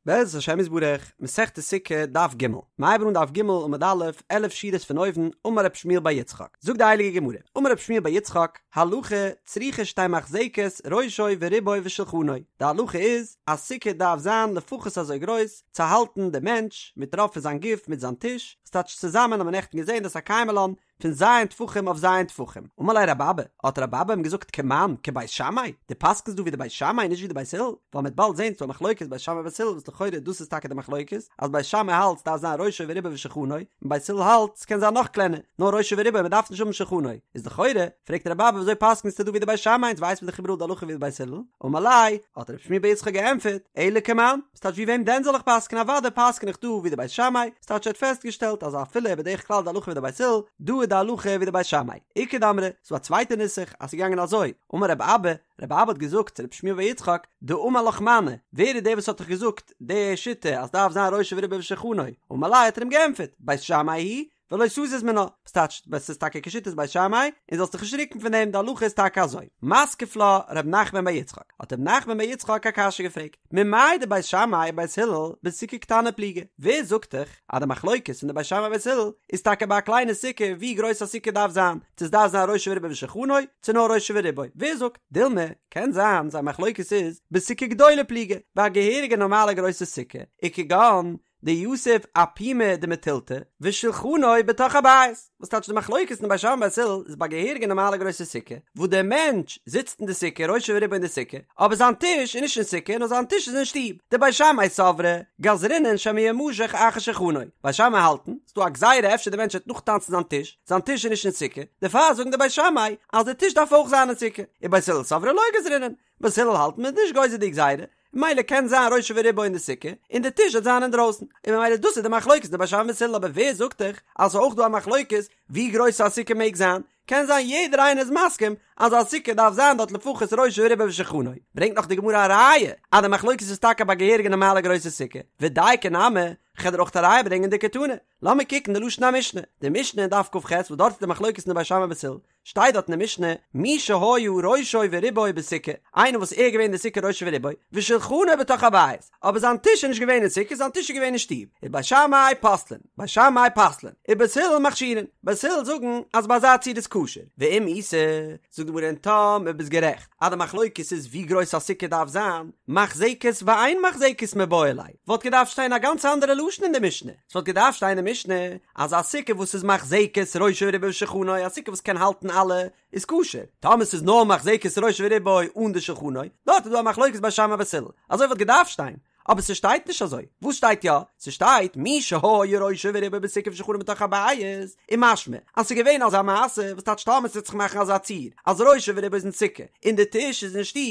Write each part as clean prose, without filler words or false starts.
בעזרת השם יתברך, מסכת סוכה, דף ג', מ'הייבן אן דף ג' עמוד א', עלף שורות פון אויבן, אמר רב שמואל בר יצחק, זאגט די הייליגע גמרא, אמר רב שמואל בר יצחק, הלכה צריכה שתהא מחזקת ראשו ורובו ושולחנו, די הלכה איז אז סוכה דארף זיין לפחות אזוי גרויס צו האלטן די מענטש מיט רוב פון זיין גוף מיט זיין טיש, ס'טייטש צוזאמען האבן מיר נעכטן געזען דאס א קיימא לן פון ז' טפחים אויף ז' טפחים. אמר ליה רבי אבא, האט רבי אבא אים געזאגט כמאן, כבית שמאי? דו פסק'נסט דא ווי די בית שמאי נישט ווי די בית הלל? ווייל מ'וועט באלד זען ס'דא א מחלוקת בית שמאי בית הלל וואס לכאורה דאס איז טאקע די מחלוקת, אז בית שמאי האלט ס'דארף זיין ראשו ורובו ושולחנו, און בית הלל האלט ס'קען זיין נאך קלענער, נאר ראשו ורובו מ'דארף נישט האבן שולחנו. איז לכאורה, פרעגט רבי אבא וויאזוי פסק'נסטו דא ווי די בית שמאי אונז ווייסט מען דאך איבעראל די הלכה ווי די בית הלל? אמר ליה, האט רב שמואל בר יצחק געענטפערט, אלא כמאן? ס'טייטש ווי וועם דען זאל איך פסק'נען אוודאי פסק'ן איך דא ווי די בית שמאי, ס'טייטש ער האט פעסטגעשטעלט אז אפילו בדרך כלל די הלכה ווי די בית הלל, דא איז די הלכה ווי די בית שמאי. איכא דאמרי, ס'דא א צווייטע נוסח אז ס'איז געגאנגען אזוי, אמר רב אבא, רב אבא האט געזאגט צו רב שמואל בר יצחק, דאמר לך מני, ווער איז דער וואס האט דיך געזאגט די שיטה אז דארף זיין ראשו ורובו ושולחנו, אמר ליה האט ער אים געענטפערט, בית שמאי היא, ולא תזיז מינה, וואס טייטש עס איז טאקע כשיטת בית שמאי, און זאלסט דיך נישט רוקן פון דעם, די הלכה איז טאקע אזוי. מתקיף לה ר' נחמן בר יצחק, האט ר' נחמן בר יצחק א קשיא געפרעגט, ממאי דבית שמאי ובית הלל בסוכה קטנה פליגי, ווער זאגט דיך אז די מחלוקת פון די בית שמאי ובית הלל איז טאקע ביי א קליינע סוכה ווי גרויס א סוכה דארף זיין, צו עס דארף זיין ראשו ורובו ושולחנו, צו נאר ראשו ורובו, ווער זאגט? דילמא, קען זיין זייער מחלוקת איז בסוכה גדולה פליגי, ביי א געהעריגע נארמאלע גרויסע סוכה, וכגון דיתיב אפומא דמתילתא ושולחנו בתוך הבית, וואס טייטש די מחלוקת אין בית שמאי בית הלל איז ביי געהעריגע נארמאלע גרויסע סוכה, וואס דער מענטש זיצט אין די סוכה ראשו ורובו אין די סוכה, אבער זיין טיש איז נישט אין סוכה נאר זיין טיש איז אין שטוב, דבית שמאי סברי גזרינן שמא ימשך אחר שולחנו, בית שמאי האלטן, ס'דא א גזירה אפשר די מענטש וועט נאכטאנצן זיין טיש, זיין טיש איז נישט אין סוכה, דערפאר זאגן די בית שמאי אז די טיש דארף אויך זיין אין סוכה, ובית הלל סברי לא גזרינן, בית הלל האלט מ'איז נישט גוזר די גזירה, ממילא קען זיין ראשו ורובו אין די סוכה, און די טיש וועט זיין אינדרויסן, און ממילא דאס איז די מחלוקת די בית שמאי בית הלל אבער ווער זאגט דיך אז ס'איז אויך דא א מחלוקת ווי גרויס א סוכה מעג זיין, קען זיין יעדער איינער איז מסכים אז א סוכה דארף זיין דארט לפחות ראשו ורובו ושולחנו, ברענגט נאך די גמרא א ראיה אז די מחלוקת איז טאקע ביי געהעריגע נארמאלע גרויסע סוכה, ודיקא נמי, כ'וועל דיר אויך א ראיה ברענגען דקתני, לאמיר קוקן די לשון המשנה, די משנה אין דף כ"ח וואס דארט איז די מחלוקת אין די בית שמאי בית הלל, שטייט דארט אין די משנה, מי שהיה ראשו ורובו בסוכה, איינער וואס ער איז געווען אין די סוכה ראשו ורובו, ושולחנו בתוך הבית, אבער זיין טיש איז נישט געווען אין סוכה, זיין טיש איז געווען אין שטוב, איז בית שמאי פוסלין, בית שמאי פסל'ען, ובית הלל מכשירין, בית הלל זאגן אז ביי אזא ציור איז כשר, ואם איתא, זאגט די גמרא און טאמער ביסט גערעכט אז די מחלוקת איז ווי גרויס א סוכה דארף זיין, מחזקת ואין מחזקת מיבעי ליה, וואלט געדארפט שטיין א גאנץ אנדערע לשון אין די משנה, ס'וואלט געדארפט שטיין אין די משנה אז א סוכה וואס איז מחזקת ראשו ורובו ושולחנו, א סוכה וואס קען האלטן אלע, איז כשר, טאמער ס'איז נאר מחזקת ראשו ורובו אן די שולחנו, דארט איז דא א מחלוקת בית שמאי בית הלל, אזוי וואלט געדארפט שטיין, אבער ס'שטייט נישט אזוי, וואס שטייט יא? ס'שטייט מי שהיה ראשו ורובו בסוכה ושולחנו בתוך הבית, איז משמע אז ס'איז געווען אזא מעשה, וואס טייטש טאמער ס'וועט זיך מאכן אזא ציור אז ראשו ורובו איז אין סוכה און די טיש איז אין שטוב,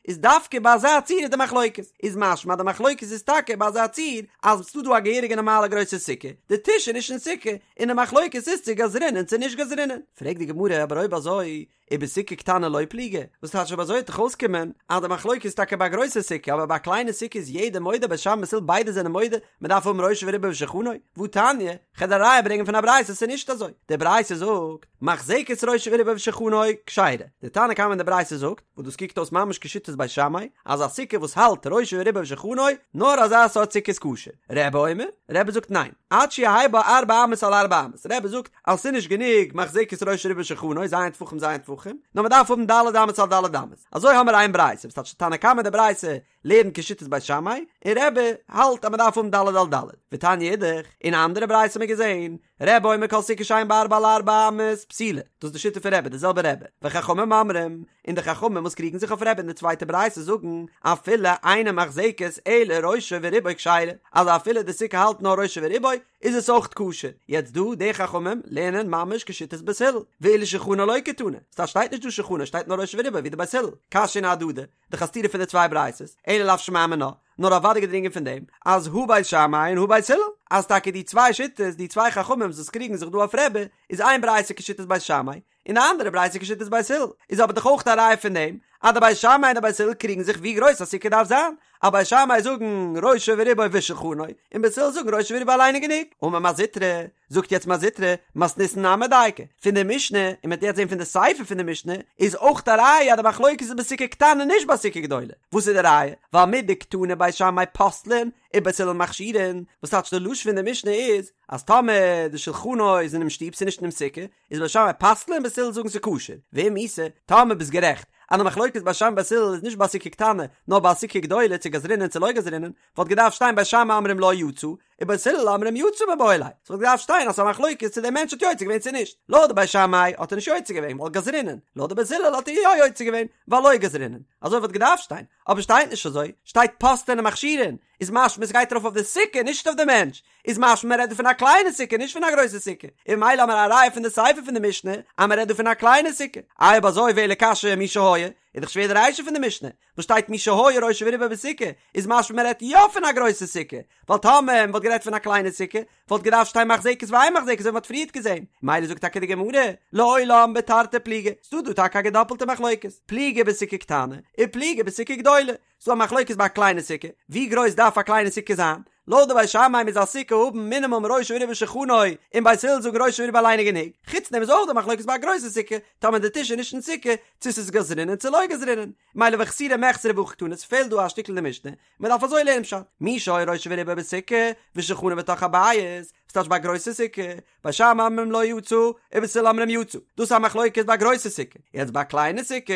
איז דווקא ביי אזא ציור איז די מחלוקת, איז משמע אז די מחלוקת איז טאקע ביי אזא ציור אז ס'דא דא א געהעריגע נארמאלע גרויסע סוכה, די טיש איז נישט אין סוכה, און די מחלוקת איז צו גזרינן צו נישט גזרינן. פרעגט די גמרא אבער אויב אזוי ובסוכה קטנה לא פליגי, וואס טייטש אויב אזוי וועט דאך אויסקומען אז די מחלוקת איז טאקע ביי א גרויסע סוכה אבער ביי א קליינע סוכה איז יעדער מודה בית שמאי בית הלל ביידע זענען מודה מען דארף האבן ראשו ורובו ושולחנו, והתניא, כ'על דיר א ראיה ברענגען פון א ברייתא ס'איז נישט אזוי, די ברייתא זאגט, מחזקת ראשו ורובו ושולחנו כשרה, די תנא קמא אין די ברייתא זאגט, וואס דאס קוקט אויס ממש כשיטת בית שמאי, אז א סוכה וואס האלט ראשו ורובו ושולחנו, נאר אזא סארט סוכה איז כשר. רבי אומר, רבי זאגט ניין, עד שיהא בה ארבע אמות על ארבע אמות, רבי זאגט אז ס'איז נישט גענוג מחזקת ראשו ורובו ושולחנו, ז' טפחים ז' טפחים, נאר מ'דארף האבן ד' אמות על ד' אמות. אזוי האמער איין ברייתא, וואס טייטש תנא קמא די ברייתא לערנט כשיטת בית שמאי, און רבי האלט אז מ'דארף האבן ד' על ד'. ותניא אידך, אין א אנדערע ברייתא האט מען געזען, רבי אומר כל סוכה שאין בה ארבע על ארבע אמות פסולה, דאס איז די שיטה פון רבי, די זעלבע רבי, וחכמים אומרים, און די חכמים וואס קריגן זיך אויף רבי אין די צווייטע ברייתא זאגן, אפילו אינה מחזקת אלא ראשו ורובו כשרה, אז אפילו די סוכה האלט נאר ראשו ורובו, איז עס אויך כשר. יעצט דא, די חכמים לערנען ממש כשיטת בית הלל, ואילו שולחנו לא קתני, ס'טייטש שטייט נישט דא שולחנו, שטייט נאר ראשו ורובו ווי די בית הלל, קשיין אהדדי, דאך א סתירה פון די צוויי ברייתות, אלא לאו שמע מינה, נאר אוודאי געדרינגען פון דעם אז הא בית שמאי און הא בית הלל, אז טאקע די צוויי שיטות, די צוויי חכמים וואס קריגן זיך דא אויף רבי, איז איין ברייתא כשיטת בית שמאי, און די אנדערע ברייתא כשיטת בית הלל, איז אבער דאך אויך א ראיה פון דעם אז די בית שמאי און די בית הלל קריגן זיך ווי גרויס א סוכה דארף זיין. אז בית שמאי זאגן ראשו ורובו ושולחנו, און בית הלל זאגן ראשו ורובו אליין איז גענוג. אמר מר זוטרא, זאגט יעצט מר זוטרא, מתניתין נמי דייקא, פון די משנה, און מ'וועט יעצט זען פון די סיפא פון די משנה, איז אויך א ראיה אז די מחלוקת איז בסוכה קטנה נישט בסוכה גדולה. וואס איז די ראיה? ווייל מדקתני בית שמאי פוסלין ובית הלל מכשירין, וואס טייטש די לשון פון די משנה איז, אז טאמער די שולחנו איז אינעם שטוב ס'איז נישט אינעם סוכה, איז בית שמאי פסל'ן בית הלל זאגן ס'איז כשר, ואם איתא, טאמער ביסט גערעכט אז די מחלוקת בית שמאי בית הלל איז נישט ביי סוכה קטנה, נאר ביי סוכה גדולה צו גזרינן צו לא גזרינן, וואלט געדארפט שטיין בית שמאי אומרים לא יצא, ובית הלל אומרים יצא מיבעי ליה, ס'וואלט געדארפט שטיין אז ס'איז א מחלוקת צו דער מענטש האט יוצא געווען צו נישט, לויט די בית שמאי האט ער נישט יוצא געווען ווייל גזרינן, לויט די בית הלל האט ער יא יוצא געווען ווייל לא גזרינן, אזוי וואלט געדארפט שטיין, אבער שטייט נישט אזוי, שטייט פוסלין ומכשירין, איז משמע ס'גייט ארויף אויף די סוכה נישט אויף די מענטש, איז משמע מ'רעדט דא פון א קליינע סוכה נישט פון א גרויסע סוכה, און ממילא האמיר א ראיה פון די סיפא פון די משנה אז מ'רעדט דא פון א קליינע סוכה, איי אויב אזוי ואלא קשיא מי שהיה, איז דאך שווער די רישא פון די משנה, וואס שטייט מי שהיה ראשו ורובו בסוכה, איז משמע מ'רעדט יא פון א גרויסע סוכה, ווייל טאמער מ'וואלט גערעדט פון א קליינע סוכה, וואלט געדארפט שטיין מחזקת ואין מחזקת אזוי ווי מ'האט פריערט געזען, ממילא זאגט טאקע די גמרא, לעולם בתרתי פליגי, ס'דא דא טאקע א געדאפלטע מחלוקת, פליגי בסוכה קטנה, ופליגי בסוכה גדולה, ס'דא א מחלוקת ביי א קליינע סוכה, ווי גרויס דארף א קליינע סוכה זיין? לויט די בית שמאי מוז א סוכה האבן מינימום ראשו ורובו ושולחנו, און בית הלל זאגן ראשו ורובו אליין איז גענוג, חוץ דעם איז אויך דא מחלוקת ביי א גרויסע סוכה, טאמער די טיש איז נישט אין סוכה, צו ס'איז גזרינן צו לא גזרינן, ממילא וחסורי מחסרא והכי קתני, ס'פעלט דא א שטיקל אין די משנה, מ'דארף אזוי לערנען פשט, מי שהיה ראשו ורובו בסוכה, ושולחנו בתוך הבית, ס'טייטש ביי א גרויסע סוכה, בית שמאי אומרים לא יצא, ובית הלל אומרים יצא, דאס איז א מחלוקת ביי א גרויסע סוכה, יעצט ביי א קליינע סוכה,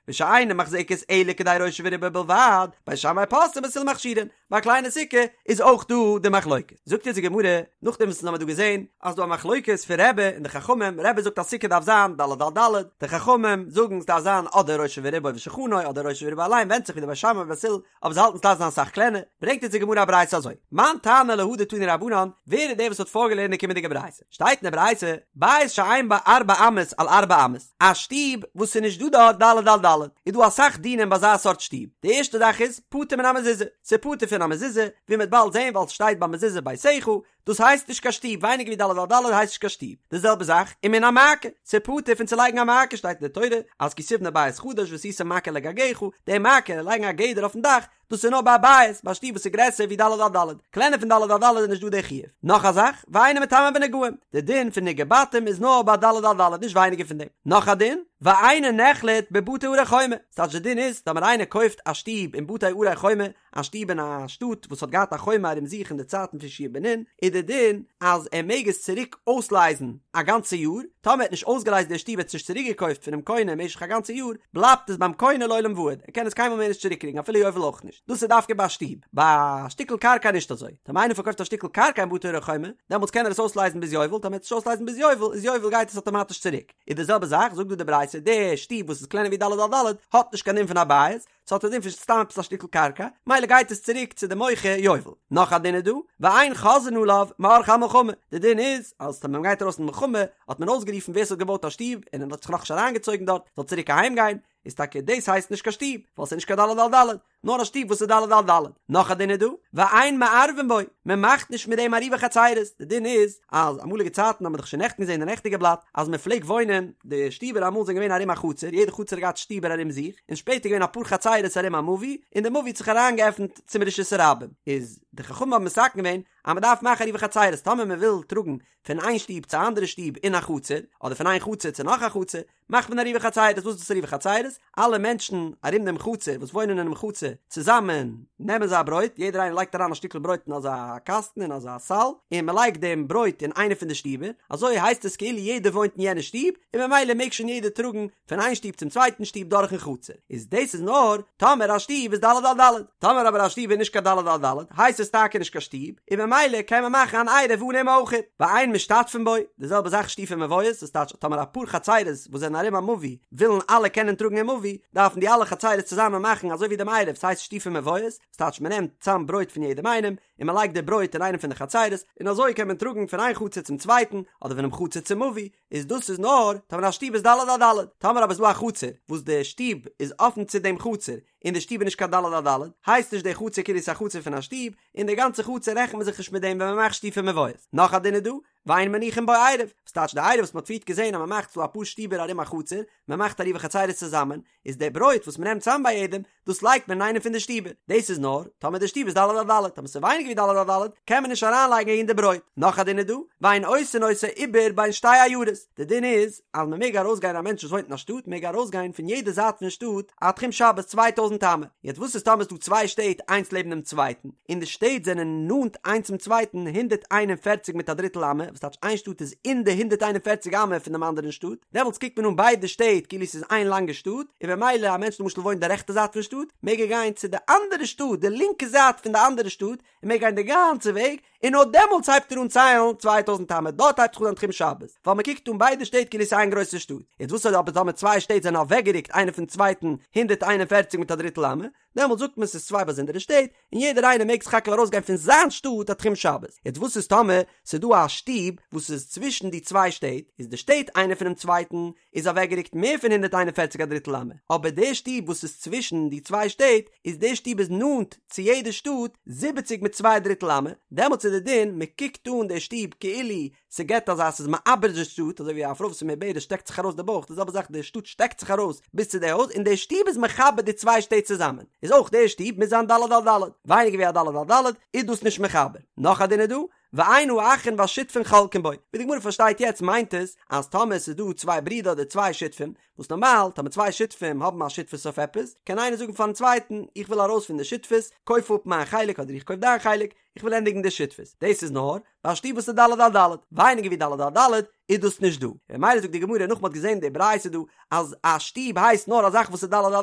ושאינה מחזקת אלא כדי ראשו ורובו בלבד, בית שמאי פוסלין ובית הלל מכשירין, ביי א קליינע סוכה איז אויך דא די מחלוקת. זאגט אונז די גמרא, נאכדעם וואס אונז האמיר דא געזען אז דא א מחלוקת פון רבי און די חכמים, רבי זאגט אז סוכה דארף זיין ד' על ד', די חכמים זאגן ס'דארף זיין אדער ראשו ורובו ושולחנו אדער ראשו ורובו אליין, ווענדט זיך ווי די בית שמאי ובית הלל, אבער זיי האלטן ס'דארף זיין אסאך קלענער, ברענגט אונז די גמרא א ברייתא אזוי, מאן תנא להא דתנו רבנן, ווער איז דער וואס האט פארגעלערנט די קומענדיגע ברייתא? שטייט אין די ברייתא, בית שאין בו ארבע אמות על ארבע אמות, א שטוב וואס ס'איז נישט דא דארט ד' על ד', איז דא אסאך דינים ביי אזא סארט שטוב, די ערשטע זאך איז, פטור מן המזוזה, ס'איז פטור פון א מזוזה, ווי מ'וועט באלד זען ווייל ס'שטייט ביי מזוזה ביתך, דאס הייסט נישט קיין שטוב, ווייניגער ווי ד' על ד' הייסט נישט קיין שטוב, די זעלבע זאך, ומן המעקה, ס'איז פטור פון צו לייגן א מעקה, שטייט אין די תורה, אז כי תבנה בית חדש ועשית מעקה לגגך, די מעקה, לייגן א גדר אויפן דאך, דאס איז נאר ביי א בית, ביי א שטוב וואס איז גרעסער ווי ד' על ד', קלענער פון ד' על ד' איז נישט דא די חיוב. נאך א זאך, ואינו מטמא בנגעים, די דין פון נגעי בתים איז נאר ביי ד' על ד', נישט ווייניגער פון דעם. נאך א דין, ואינו נחלט בבתי ערי חומה, ס'טייטש די דין איז, טאמער איינער קויפט א שטוב אין בתי ערי חומה, א שטוב אין א שטאט וואס האט געהאט א חומה ארום זיך אין די צייטן פון יהושע בן נון, איז די דין אז ער מעג עס צוריק אויסלייזן א גאנצע יאר, טאמער ער האט נישט אויסגעלייזט די שטוב ער האט עס נישט צוריק געקויפט פונעם קונה משך א גאנצע יאר, בלייבט עס ביים קונה לעולם ועד, ער קען עס קיינמאל מער נישט צוריק קריגן אפילו יובל אויך נישט, דאס איז דווקא ביי א שטוב, ביי א שטיקל קרקע נישט אזוי, טאמער איינער פארקויפט א שטיקל קרקע אין בתי ערי חומה, דעמאלטס קען ער עס אויסלייזן ביז יובל, טאמער ער וועט עס נישט אויסלייזן ביז יובל, איז יובל גייט עס אטאמאטיש צוריק, איז די זעלבע זאך, זאגט דא די ברייתא, די שטוב וואס איז קלענער ווי ד' על ד' האט נישט קיין דין פון א בית, ס'האט א דין פון סתם עפעס א שטיקל קרקע, מילא גייט עס צוריק צו די מוכר יובל. נאך א דין איז דא, ואין חוזרין עליו מעורכי המלחמה, די דין איז אז ווען מ'גייט ארויס אין מלחמה האט מען אויסגערופן ווער ס'האט געבויט א שטוב און ער האט זיך נאכנישט אריינגעצויגן דארט זאל צוריק אהיים גיין, איז טאקע דאס הייסט נישט קיין שטוב, ווייל ס'איז נישט קיין ד' על ד', נאר א שטוב וואס איז ד' על ד'. נאך א דין איז דא, ואין מערבין בו, מען מאכט נישט מיט דעם עירובי חצירות, די דין איז אז אמאליגע צייטן האט מען דאך שוין נעכטן געזען אין די נעכטיגע בלאט אז מען פלעגט וואוינען, די שטיבער אמאל זענען געווען ארום א חצר, יעדע חצר האט געהאט שטיבער ארום זיך, און שפעטער געווען אפאר חצרות ארום א מבוי, און די מבוי האט זיך אריינגעעפנט צום רשות הרבים, איז די חכמים האבן מתקן געווען אז מען דארף מאכן עירובי חצירות, טאמער מען וויל טראגן פון איין שטוב צו א אנדערע שטוב אין א חצר, אדער פון איין חצר צו נאך א חצר, מאכט מען עירובי חצירות, וואס איז דאס עירובי חצירות? אלע מענטשן ארום דעם חצר וואס וואוינען אינעם חצר צוזאמען נעמען זיי א ברויט, יעדער איינער לייגט אריין א שטיקל ברויט אין אזא קאסטן אין אזא סל, און מען לייגט דעם ברויט אין איינע פון די שטיבער, אזוי הייסט עס כאילו יעדער וואוינט אין יענע שטוב, און ממילא מעג שוין יעדער טראגן פון איין שטוב צום צווייטן שטוב דורכן חצר. איז דאס איז נאר טאמער א שטוב איז ד' על ד', טאמער אבער א שטוב איז נישט קיין ד' על ד' הייסט עס טאקע נישט קיין שטוב, און ממילא קען מען מאכן אן עירוב אן אים אויכעט, ואין משתתפין בו, די זעלבע זאך שיתופי מבואות, דאס טייטש טאמער אפאר חצירות וואס זענען ארום א מבוי ווילן אלע קענען טראגן אין מבוי, דארפן די אלע חצירות צוזאמען מאכן אזוי ווי דעם עירוב, ס'הייסט שיתופי מבואות, דאס טייטש מען נעמט צאם ברויט פון יעדעם איינעם. און מען לייגט די ברויט אין איינע פון די חצרות, און אזוי קען מען טראגן פון איין חצר צום צווייטן, אדער פונעם חצר צום מבוי, איז דאס איז נאר טאמער א שטוב איז ד' על ד', טאמער אבער איז דא א חצר וואס די שטוב איז אפן צו דעם חצר, און די שטוב איז נישט קיין ד' על ד', הייסט נישט די חצר כאילו ס'איז א חצר פון א שטוב, און די גאנצע חצר רעכנט מען זיך נישט מיט דעם ווען מען מאכט שיתופי מבואות. נאך א דין איז דא, ואין מניחין בו עירוב, וואס טייטש די עירוב וואס מען האט פריערט געזען אז מען מאכט ס'דא אפאר שטיבער ארום א חצר, מען מאכט עירובי חצרות צוזאמען, איז די ברויט וואס מען נעמט צאם ביי יעדעם, דאס לייגט מען אין איינע פון די שטיבער, דאס איז נאר טאמער די שטוב איז ד' על ד', טאמער ס'איז ווייניגער ווי ד' על ד' קען מען נישט אריינלייגן אהין די ברויט. נאך א דין איז דא, ואין עושין אותו עיבור בין שתי עיירות, די דין איז אז מען מעג ארויסגיין א מענטש וואס וואוינט אין א שטאט מעג ארויסגיין פון יעדע זייט פון שטאט א תחום שבת צוויי טויזנט אמה, יעצט וואס איז טאמער ס'איז דא צוויי שטעט איינס לעבן דעם צווייטן און די שטעט זענען נאנט איינס צום צווייטן הונדערט איין און פערציג מיט א דריטל אמה, וואס טייטש איין שטאט איז אין די הונדערט איין און פערציג אמה פון דעם אנדערן שטאט, דעמאלטס קוקט מען אן ביידע שטעט כאילו ס'איז איין לאנגע שטאט, און במילא א מענטש למשל וואוינט די רעכטע זייט פון שטאט מעג ער גיין צו די אנדערע שטאט די לינקע זייט פון די אנדערע שטאט און מעג גיין די גאנצע וועג, און נאר דעמאלטס הייבט ער אן ציילן צוויי טויזנט אמה, דארט הייבט זיך אן זיין תחום שבת, ווייל מען קוקט אן ביידע שטעט כאילו ס'איז איין גרויסע שטאט. יעצט וואס איז אבער טאמער צוויי שטעט זענען אוועקגערוקט איינער פון צווייטן הונדערט איין און פערציג מיט א דריטל אמה, דעמאלטס זאגט מען ס'איז צוויי באזונדערע שטעט, און יעדער איינער מעג סך הכל ארויסגיין פון זיין שטאט א תחום שבת. יעצט וואס איז טאמער ס'איז דא א שטוב וואס איז צווישן די צוויי שטעט, איז די שטעט איינער פונעם צווייטן איז אוועקגערוקט מער פון הונדערט איין און פערציג א דריטל אמה, אבער די שטוב וואס איז צווישן די צוויי שטעט, איז די שטוב איז נאנט צו יעדע שטאט זיבעציג מיט צוויי דריטל אמה, דעמאלטס איז די דין מען קוקט אן די שטוב כאילו ס'געט אזא ס'איז מעבר די שטאט, אזוי ווי א פרוי וואס איז מעוברת שטעקט זיך ארויס די בויך, די זעלבע זאך די שטאט שטעקט זיך ארויס ביז צו די הויז, און די שטוב איז מחבר די צוויי שטעט צוזאמען, איז אויך די שטוב מוז זיין ד' על ד', ווייניגער ווי א ד' על ד' איז דאס נישט מחבר. נאך א דין איז דא, ואין האחין והשותפין חולקין בו, ווי די גמרא פארשטייט יעצט מיינט עס אז טאמער עס איז דא צוויי ברידער אדער צוויי שותפים, וואס נארמאל טאמער צוויי שותפים האבן א שותפות אויף עפעס, קען איינער זאגן פארן צווייטן איך וויל ארויס פון די שותפות, קויף אפ מיין חלק אדער איך קויף דיין חלק, איך וויל ענדיגן די שותפות. דאס איז נאר ביי א שטוב וואס איז ד' על ד', ווייניגער ווי ד' על ד' איז דאס נישט דא. און ממילא זאגט די גמרא נאך מען האט געזען די ברייתא דא אז א שטוב הייסט נאר א זאך וואס איז ד' על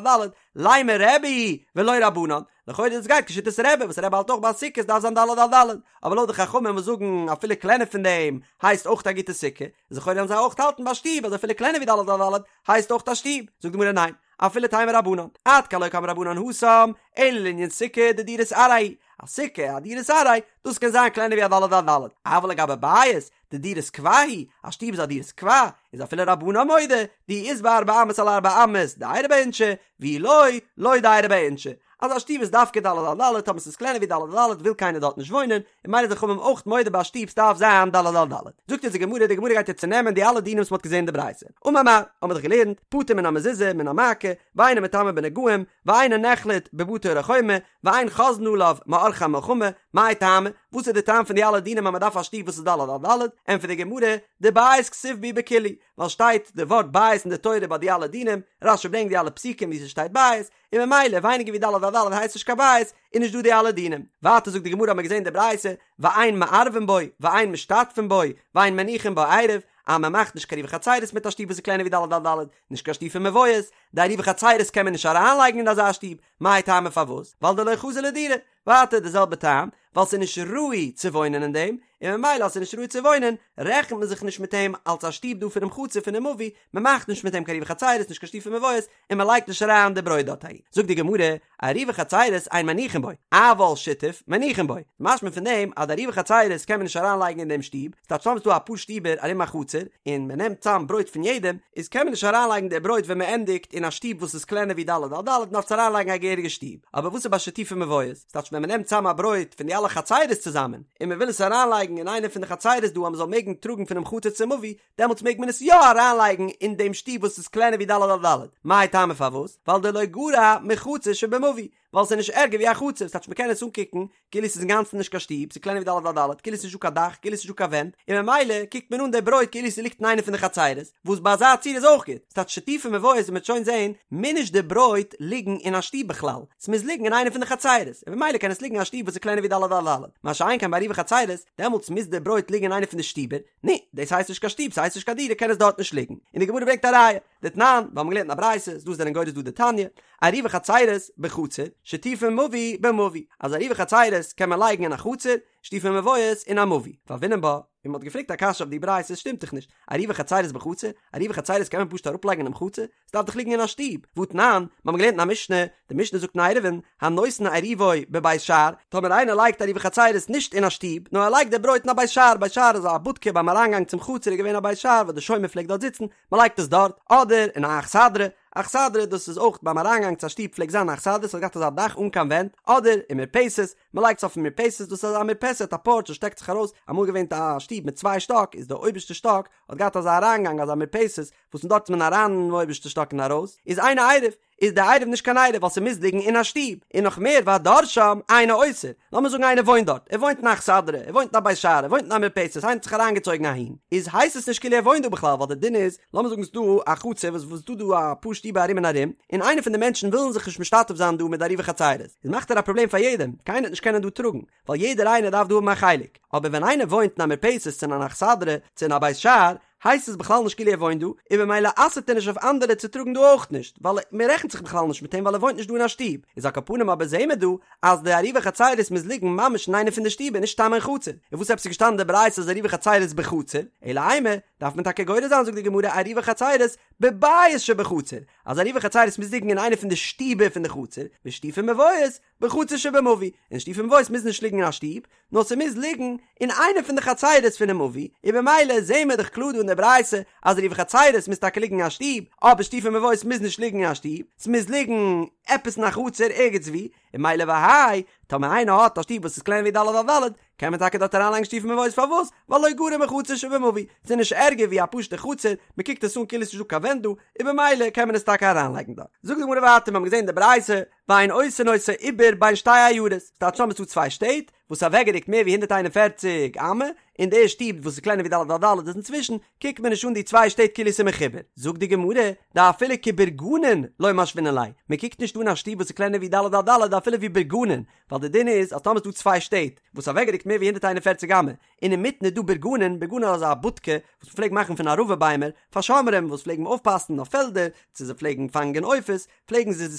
ד', לימא רבי היא ולא רבנן, לכאורה דאס גייט כשיטת רבי וואס רבי האלט אויך ביי סוכות דארף זיין ד' על ד', אבער לויט די חכמים וואס זאגן אפילו קלענער פון דעם הייסט אויך א גוטע סוכה, איז לכאורה וועלן זיי אויך האלטן ביי שטוב אז אפילו קלענער ווי ד' על ד' הייסט אויך א שטוב, זאגט די גמרא ניין, אפילו תימא רבנן, עד כאן לא קאמרי רבנן התם, אלא לענין סוכה דדירת עראי, א סוכה א דירת עראי, דאס קען זיין קלענער ווי א ד' על ד', אבל לגבי בית, דדירת קבע הוא, א שטוב איז א דירת קבע, איז אפילו רבנן מודה, דאי אית ביה ארבע אמות על ארבע אמות, דיירי ביה אינשי, ואי לא, לא דיירי ביה אינשי. אז א שטוב איז דווקא ד' על ד', טאמער ס'איז קלענער ווי ד' על ד' וויל קיינער דארט נישט וואוינען, און ממילא די חכמים אויך מודה ביי א שטוב ס'דארף זיין ד' על ד'. זאגט אונז די גמרא, די גמרא גייט יעצט צונעמען די אלע דינים וואס מ'האט געזען אין די ברייתא. אמר מר, האמיר דאך געלערנט, פטור מן המזוזה, מן המעקה, ואינו מטמא בנגעים, ואינו נחלט בבתי ערי חומה, ואין חוזרין עליו מעורכי המלחמה, מאי טעמא, וואס איז די טעם פון די אלע דינים אז מען דארף א שטוב וואס איז ד' על ד', ענטפערט די גמרא, דבית כתיב בהו בכולהו, ווייל שטייט די ווארט בית אין די תורה ביי די אלע דינים, רש"י ברענגט די אלע פסוקים וואו ס'שטייט בית, און ממילא ווייניגער ווי ד' על ד' הייסט נישט קיין בית, איז נישט דא די אלע דינים. ווייטער זאגט די גמרא האט מען געזען די ברייתא, ואין מערבין בו, ואין משתתפין בו, ואין מניחין בו עירוב, אז מען מאכט נישט קיין עירובי חצירות מיט א שטוב וואס איז קלענער ווי ד' על ד', נישט קיין שיתופי מבואות, די עירובי חצירות קען מען נישט אריינלייגן אין אזא שטוב, מאי טעמא פארוואס? ווייל דלא חזי לדירה, ווייטער די זעלבע טעם, ווייל ס'איז נישט ראוי צו וואוינען אין דעם, און ממילא אז ס'איז נישט ראוי צו וואוינען, רעכנט מען זיך נישט מיט אים אלס א שטוב דא פונעם חצר פונעם מבוי, מען מאכט נישט מיט אים קיין עירובי חצירות נישט קיין שיתופי מבואות, און מען לייגט נישט אריין די ברויט דארט אהין. זאגט די גמרא, עירובי חצירות אין מניחין בו, אבל שיתוף מניחין בו, משמע פון דעם אז די עירובי חצירות קען מען נישט אריין לייגן אין דעם שטוב, ס'טייטש טאמער ס'דא אפאר שטיבער ארום א חצר, און מען נעמט צאם ברויט פון יעדעם, איז קען מען נישט אריין לייגן די ברויט ווען מען ענדיגט אין א שטוב וואס איז קלענער ווי ד' על ד', מען דארף עס אריין לייגן א געהעריגע שטוב. אבער וואס איז ביי שיתופי מבואות? ס'טייטש ווען מען נעמט צאם א ברויט פון די אלע חצירות צוזאמען, און מען וויל עס אריין לייגן אין איינע פון די חצירות דא אז מען זאל מעגן טראגן פונעם חצר צום מבוי, דעמאלטס מעג מען עס יא אריינלייגן אין דעם שטוב וואס איז קלענער ווי ד' על ד', מאי טעמא פארוואס? ווייל דלא גרע מחצר שבמבוי, ווייל ס'איז נישט ערגער ווי א חצר, ס'טייטש מ'קען עס אנקוקן כאילו ס'איז אינגאנצן נישט קיין שטוב, ס'איז קלענער ווי ד' על ד', כאילו ס'איז נישטא קיין דאך, כאילו ס'איז נישטא קיין ווענט, און ממילא קוקט מען אן די ברויט כאילו ס'ליגט אין איינע פון די חצרות, וואס ביי אזא ציור איז אויך גוט, ס'טייטש שיתופי מבואות ווי מ'וועט שוין זען, מוז נישט די ברויט ליגן אין א שטוב בכלל, ס'מוז ליגן אין איינע פון די חצרות, און ממילא קען עס ליגן אין א שטוב וואס איז קלענער ווי ד' על ד', מה שאין כן ביי עירובי חצרות, דעמאלטס מוז די ברויט ליגן אין איינע פון די שטיבער, נו, דאס הייסט נישט קיין שטוב, ס'הייסט נישט קיין דירה, קען עס דארט נישט ליגן. און די גמרא ברענגט א ראיה, דתנן, מיר האבן געלערנט אין א ברייתא, דא זענען גורס דא דתניא, עירובי חצירות בחצר, שיתופי מבוי במבוי, אז עירובי חצירות קען מען לייגן אין א חצר, שיתופי מבואות אין א מבוי. והוינן בה, און מ'האט געפרעגט א קשיא אויף די ברייתא, עס שטימט דאך נישט, עירובי חצירות בחצר, עירובי חצירות קען מען פשוט אראפלייגן אינעם חצר, ס'דארף דאך ליגן אין א שטוב, והתנן, מיר האבן געלערנט אין א משנה, די משנה זאגט אין עירובין, הנותן עירובו בבית שער, טאמער איינער לייגט עירובי חצירות נישט אין א שטוב, נאר ער לייגט די ברויט אין א בית שער, בית שער איז א בודקע ביים אריינגאנג צום חצר איז געווען א בית שער וואס די שומר פלעגט דארט זיצן, מען לייגט עס דארט, אדער אין א אכסדרה, אכסדרה דאס איז אויך ביים אריינגאנג צו א שטוב פלעגט זיין א אכסדרה, ס'האט געהאט אזא דאך אן קיין ווענט, אדער אין מרפסת, מען לייגט עס אויפן מרפסת, דאס איז א מרפסת א פארטש וואס שטעקט זיך ארויס, אמאל געווען א שטוב מיט צוויי שטאק איז די אויבערשטע שטאק האט געהאט אזא אריינגאנג אזא מרפסת וואס פון דארט איז מען אריין אינעם אויבערשטע שטאק און ארויס, איז אינו עירוב, איז די עירוב נישט קיין עירוב ווייל ס'מוז ליגן אין א שטוב, און נאך מער והדר שם אינו אוסר, לאמיר זאגן איינער וואוינט דארט, ער וואוינט אין א אכסדרה, ער וואוינט אין א בית שער, ער וואוינט אין א מרפסת, איינער האט זיך אריינגעצויגן אהין, איז הייסט עס נישט כאילו ער וואוינט דא בכלל ווייל די דין איז, לאמיר זאגן ס'דא א חצר וואס וואס ס'דא דא אפאר שטיבער ארום און ארום, און איינער פון די מענטשן ווילן זיך נישט משתתף זיין דא מיט די עירובי חצירות, איז מאכט ער א פראבלעם פאר יעדעם, קיינער וועט נישט קענען דא טראגן, ווייל יעדער איינער דארף דא האבן א חלק, אבער ווען איינער וואוינט אין א מרפסת צו אין אן אכסדרה צו אין א בית שער, הייסט עס בכלל נישט כאילו ער וואוינט דא, און במילא אסר'ט ער נישט אויף אנדערע צו טראגן דא אויך נישט, ווייל מען רעכנט זיך בכלל נישט מיט אים ווייל ער וואוינט נישט דא אין א שטוב, איז על כל פנים אבער זעהן מיר דא אז די עירובי חצירות מוז ליגן ממש אין איינע פון די שטיבער נישט סתם אין חצר, און וואס עפעס איז געשטאנען אין די ברייתא אז עירובי חצירות בחצר, אלא אימא, דארף מען טאקע גורס זיין זאגט די גמרא עירובי חצירות בבית שבחצר, אז עירובי חצירות מוז ליגן אין איינע פון די שטיבער פון די חצר, ושיתופי מבואות בחצר שבמבוי, און שיתופי מבואות מוז נישט ליגן אין א שטוב, נאר ס'מוז ליגן אין איינע פון די חצירות פונעם מבוי, און במילא זעהן מיר דאך קלאר דא אין די ברייתא אז עירובי חצירות מוז טאקע ליגן אין א שטוב, אבער שיתופי מבואות מוז נישט ליגן אין א שטוב, ס'מוז ליגן עפעס אין א חצר ערגעץ וואו, און ממילא והאי, טאמער איינער האט א שטוב וואס איז קלענער ווי ד' על ד', קען מען טאקע דארט אריינלייגן שיתופי מבואות פארוואס? ווייל לא גרע מחצר שבמבוי, ס'איז נישט ערגער ווי א פשוטע חצר, מ'קוקט עס אן כאילו ס'נישט דא קיין ווענט דא, און במילא קען מען עס טאקע אריינלייגן דארט. זאגט די גמרא ווייטער, מיר האבן געזען אין די ברייתא, ואין עושין אותו עיבור בין שתי עיירות, ס'טייטש טאמער ס'דא צוויי שטעט וואס איז אוועקגערוקט מער ווי 141 אמה, און די שטוב וואס איז קלענער ווי ד' על ד' איז אינצווישן, קוקט מען נישט אן די צוויי שטעט כאילו ס'איז מחובר. זאגט די גמרא, דאפילו כבורגנין לא משווינן ליה, מען קוקט נישט אן א שטוב וואס איז קלענער ווי ד' על ד' אפילו ווי בורגנין, ווייל די דין איז אז טאמער ס'דא צוויי שטעט וואס אוועקגערוקט מער ווי 141 אמה, און אינמיטן איז דא בורגנין, בורגנין איז אזא בודקע וואס מ'פלעגט מאכן פון ערבה ביימער, פאר שומרים וואס פלעגן אויפפאסן אויף פעלדער, צו זיי פלעגן פאנגען עופות, פלעגן זיי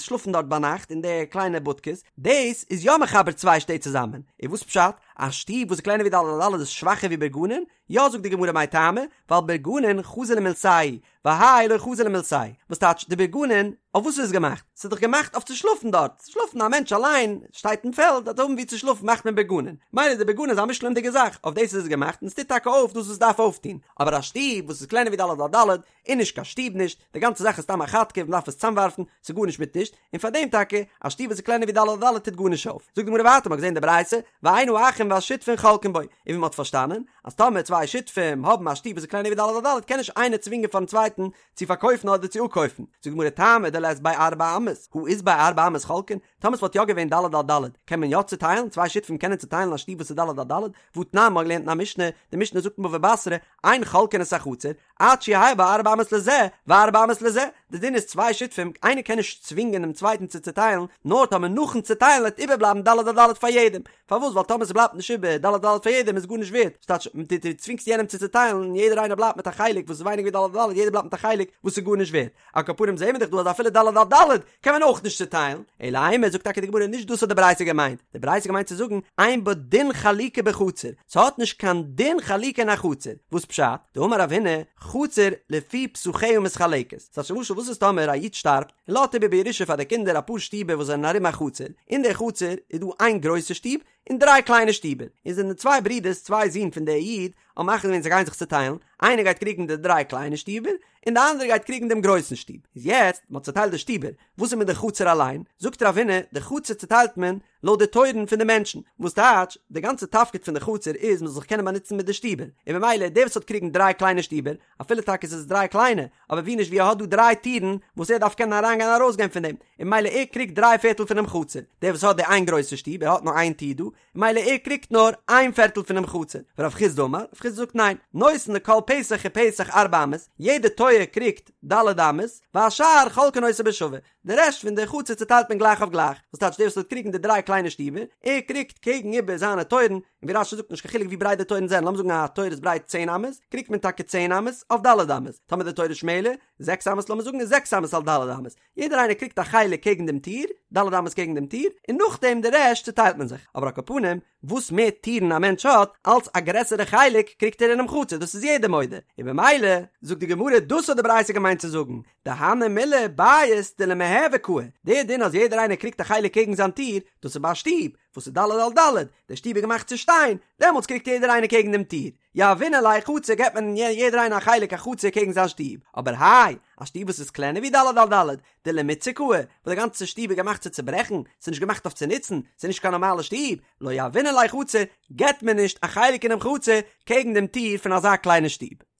שלאפן דארט ביינאכט אין די קליינע בודקעס, דאס איז יא מחבר צוויי שטעט צוזאמען, און וואס פשט? א שטוב וואס איז קלענער ווי ד' על ד' איז שוואכער ווי בורגנין? יא זאגט די גמרא מאי טעמא, ווייל בורגנין חזי למילתייהו, והאי לא חזי למילתיה, וואס טייטש די בורגנין, אויף וואס איז עס געמאכט? ס'איז דאך געמאכט אויף צו שלאפן דארט, שלאפן א מענטש אליין שטייט אין פעלד דארף האבן וואו צו שלאפן מאכט מען בורגנין, מילא די בורגנין איז א מושלמ'דיגע זאך, אויף דאס איז עס געמאכט און עס טוט טאקע אויף דאס וואס עס דארף אויפטון, אבער א שטוב וואס איז קלענער ווי ד' על ד' איז נישט קיין שטוב נישט, די גאנצע זאך איז סתם א כאטקע, מען דארף עס צאמווארפן, ס'איז גארנישט מיט נישט, און פאר דעם טאקע, א שטוב וואס איז קלענער ווי ד' על ד' טוט גארנישט אויף. זאגט די גמרא ווייטער, מ'האט געזען אין די ברייתא, ואין האחים והשותפין חולקין בו, און ווי מ'האט פארשטאנען, אז טאמער צוויי שותפים האבן א שטוב וואס איז קלענער ווי ד' על ד' קען נישט איינער צווינגען פארן צווייטן צו פארקויפן אדער צו אפקויפן. זאגט די גמרא טעמא דלית ביה ארבע אמות, הא אית ביה ארבע אמות חולקין, טאמער ס'וואלט יא געווען ד' על ד' קען מען יא צוטיילן, צוויי שותפים קענען צוטיילן א שטוב וואס איז ד' על ד', והתנן מ'האט געלערנט אין א משנה, די משנה זאגט אין בבא בתרא, אין חולקין את החצר, עד שיהא בה ארבע אמות לזה וארבע אמות לזה, די דין איז צוויי שותפים, איינער קען נישט צווינגען דעם צווייטן צו צוטיילן, נאר טאמער נאכן צוטיילן וועט איבערבלייבן ד' על ד' פאר יעדעם, פארוואס ווייל טאמער ס'בלייבט נישט איבער ד' על ד' פאר יעדעם איז גארנישט ווערט, ס'טייטש דו דו צווינגסט יענעם צו צוטיילן און יעדער איינער בלייבט מיט א חלק וואס איז ווייניגער ווי ד' על ד', יעדער בלייבט מיט א חלק וואס איז גארנישט ווערט, על כל פנים זעהן מיר דאך דא אז אפילו ד' על ד' קען מען אויך נישט צוטיילן, אלא אימא זאגט טאקע די גמרא נישט דאס האט די ברייתא געמיינט, די ברייתא געמיינט צו זאגן אין בה דין חלוקה בחצר, ס'האט נישט קיין דין חלוקה אין א חצר, וואס פשט? דאמר רב הונא, חצר לפי פתחיה מתחלקת, ס'טייטש למשל וואס איז טאמער א איד שטארבט און לאזט איבער בירושה פאר די קינדער אפאר שטיבער וואס זענען ארום א חצר, אין די חצר איז דא איין גרויסע שטוב און דריי קליינע שטיבער, און זענען צוויי ברידערס צוויי זין פון די איד האבן מחליט געווען זיי גייען זיך צוטיילן, איינער גייט קריגן די דריי קליינע שטיבער, און די אנדערע גייט קריגן דעם גרויסן שטוב. איז יעצט, מען האט צוטיילט די שטיבער, וואס איז מיט די חצר אליין? זאגט רב הונא, די חצר צוטיילט מען לויט די טויערן פון די מענטשן, וואס טייטש, די גאנצע תפקיד פון די חצר איז מען זאל זיך קענען באנוצן מיט די שטיבער, און ממילא דער וואס האט קריגן דריי קליינע שטיבער, אפילו טאקע עס איז דריי קליינע, אבער ווי נישט ווי ער האט דא דריי טירן וואס ער דארף קענען אריינגיין און ארויסגיין פון דעם, און ממילא ער קריגט דריי פערטל פונעם חצר, דער וואס האט די איין גרויסע שטוב, ער האט נאר איין טיר דא, מילא ער קריגט נאר איין פערטל פונעם חצר, ורב חסדא אמר, רב חסדא זאגט ניין, נותן לכל פתח ופתח ארבע אמות, יעדע טויער קריגט ד' אמות, והשאר חולקין אותו בשווה, די רעשט פון די חצר צוטיילט מען גלייך אויף גלייך, וואס טייטש דער וואס וועט קריגן די דריי קליינע שטיבער, ער קריגט קעגן איבער זיינע טויערן, און ווי רש"י זאגט נישט קיין חילוק ווי ברייט די טויערן זענען, לאמיר זאגן א טויער איז ברייט צען אמות, קריגט מען טאקע צען אמות אויף ד' אמות, טאמער די טויער איז שמעלער, זעקס אמות לאמיר זאגן איז זעקס אמות על ד' אמות, יעדער איינער קריגט א חלק קעגן דעם טיר, ד' אמות קעגן דעם טיר, און נאכדעם די רעשט צוטיילט מען זיך, אבער על כל פנים, וואס מער טירן א מענטש האט, אלץ א גרעסערע חלק קריגט ער אינעם חצר, דאס איז יעדער מודה, און במילא, זאגט די גמרא, דאס האט די ברייתא געמיינט צו זאגן, דהני מילי בית דלמיהוי קאי, דער דין אז יעדער איינער קריגט א חלק קעגן זיין טיר, דאס איז ביי א שטוב, וואס איז ד' על ד', די שטוב איז געמאכט צו שטיין, דעמאלטס קריגט יעדער איינער קעגן דעם טיר, יהבינן ליה חצר געבט מען יעדער איינער א חלק א חצר קעגן זיין שטוב, אבער האי, א שטוב וואס איז קלענער ווי ד' על ד', דלמיתסר קאי, וואס די גאנצע שטוב איז געמאכט צו צוברעכן, ס'איז נישט געמאכט אויף צו נוצן, ס'איז נישט קיין נארמאלע שטוב, לא יהבינן ליה חצר, געבט מען נישט א חלק אינעם חצר קעגן דעם טיר פון אזא קליינע שטוב.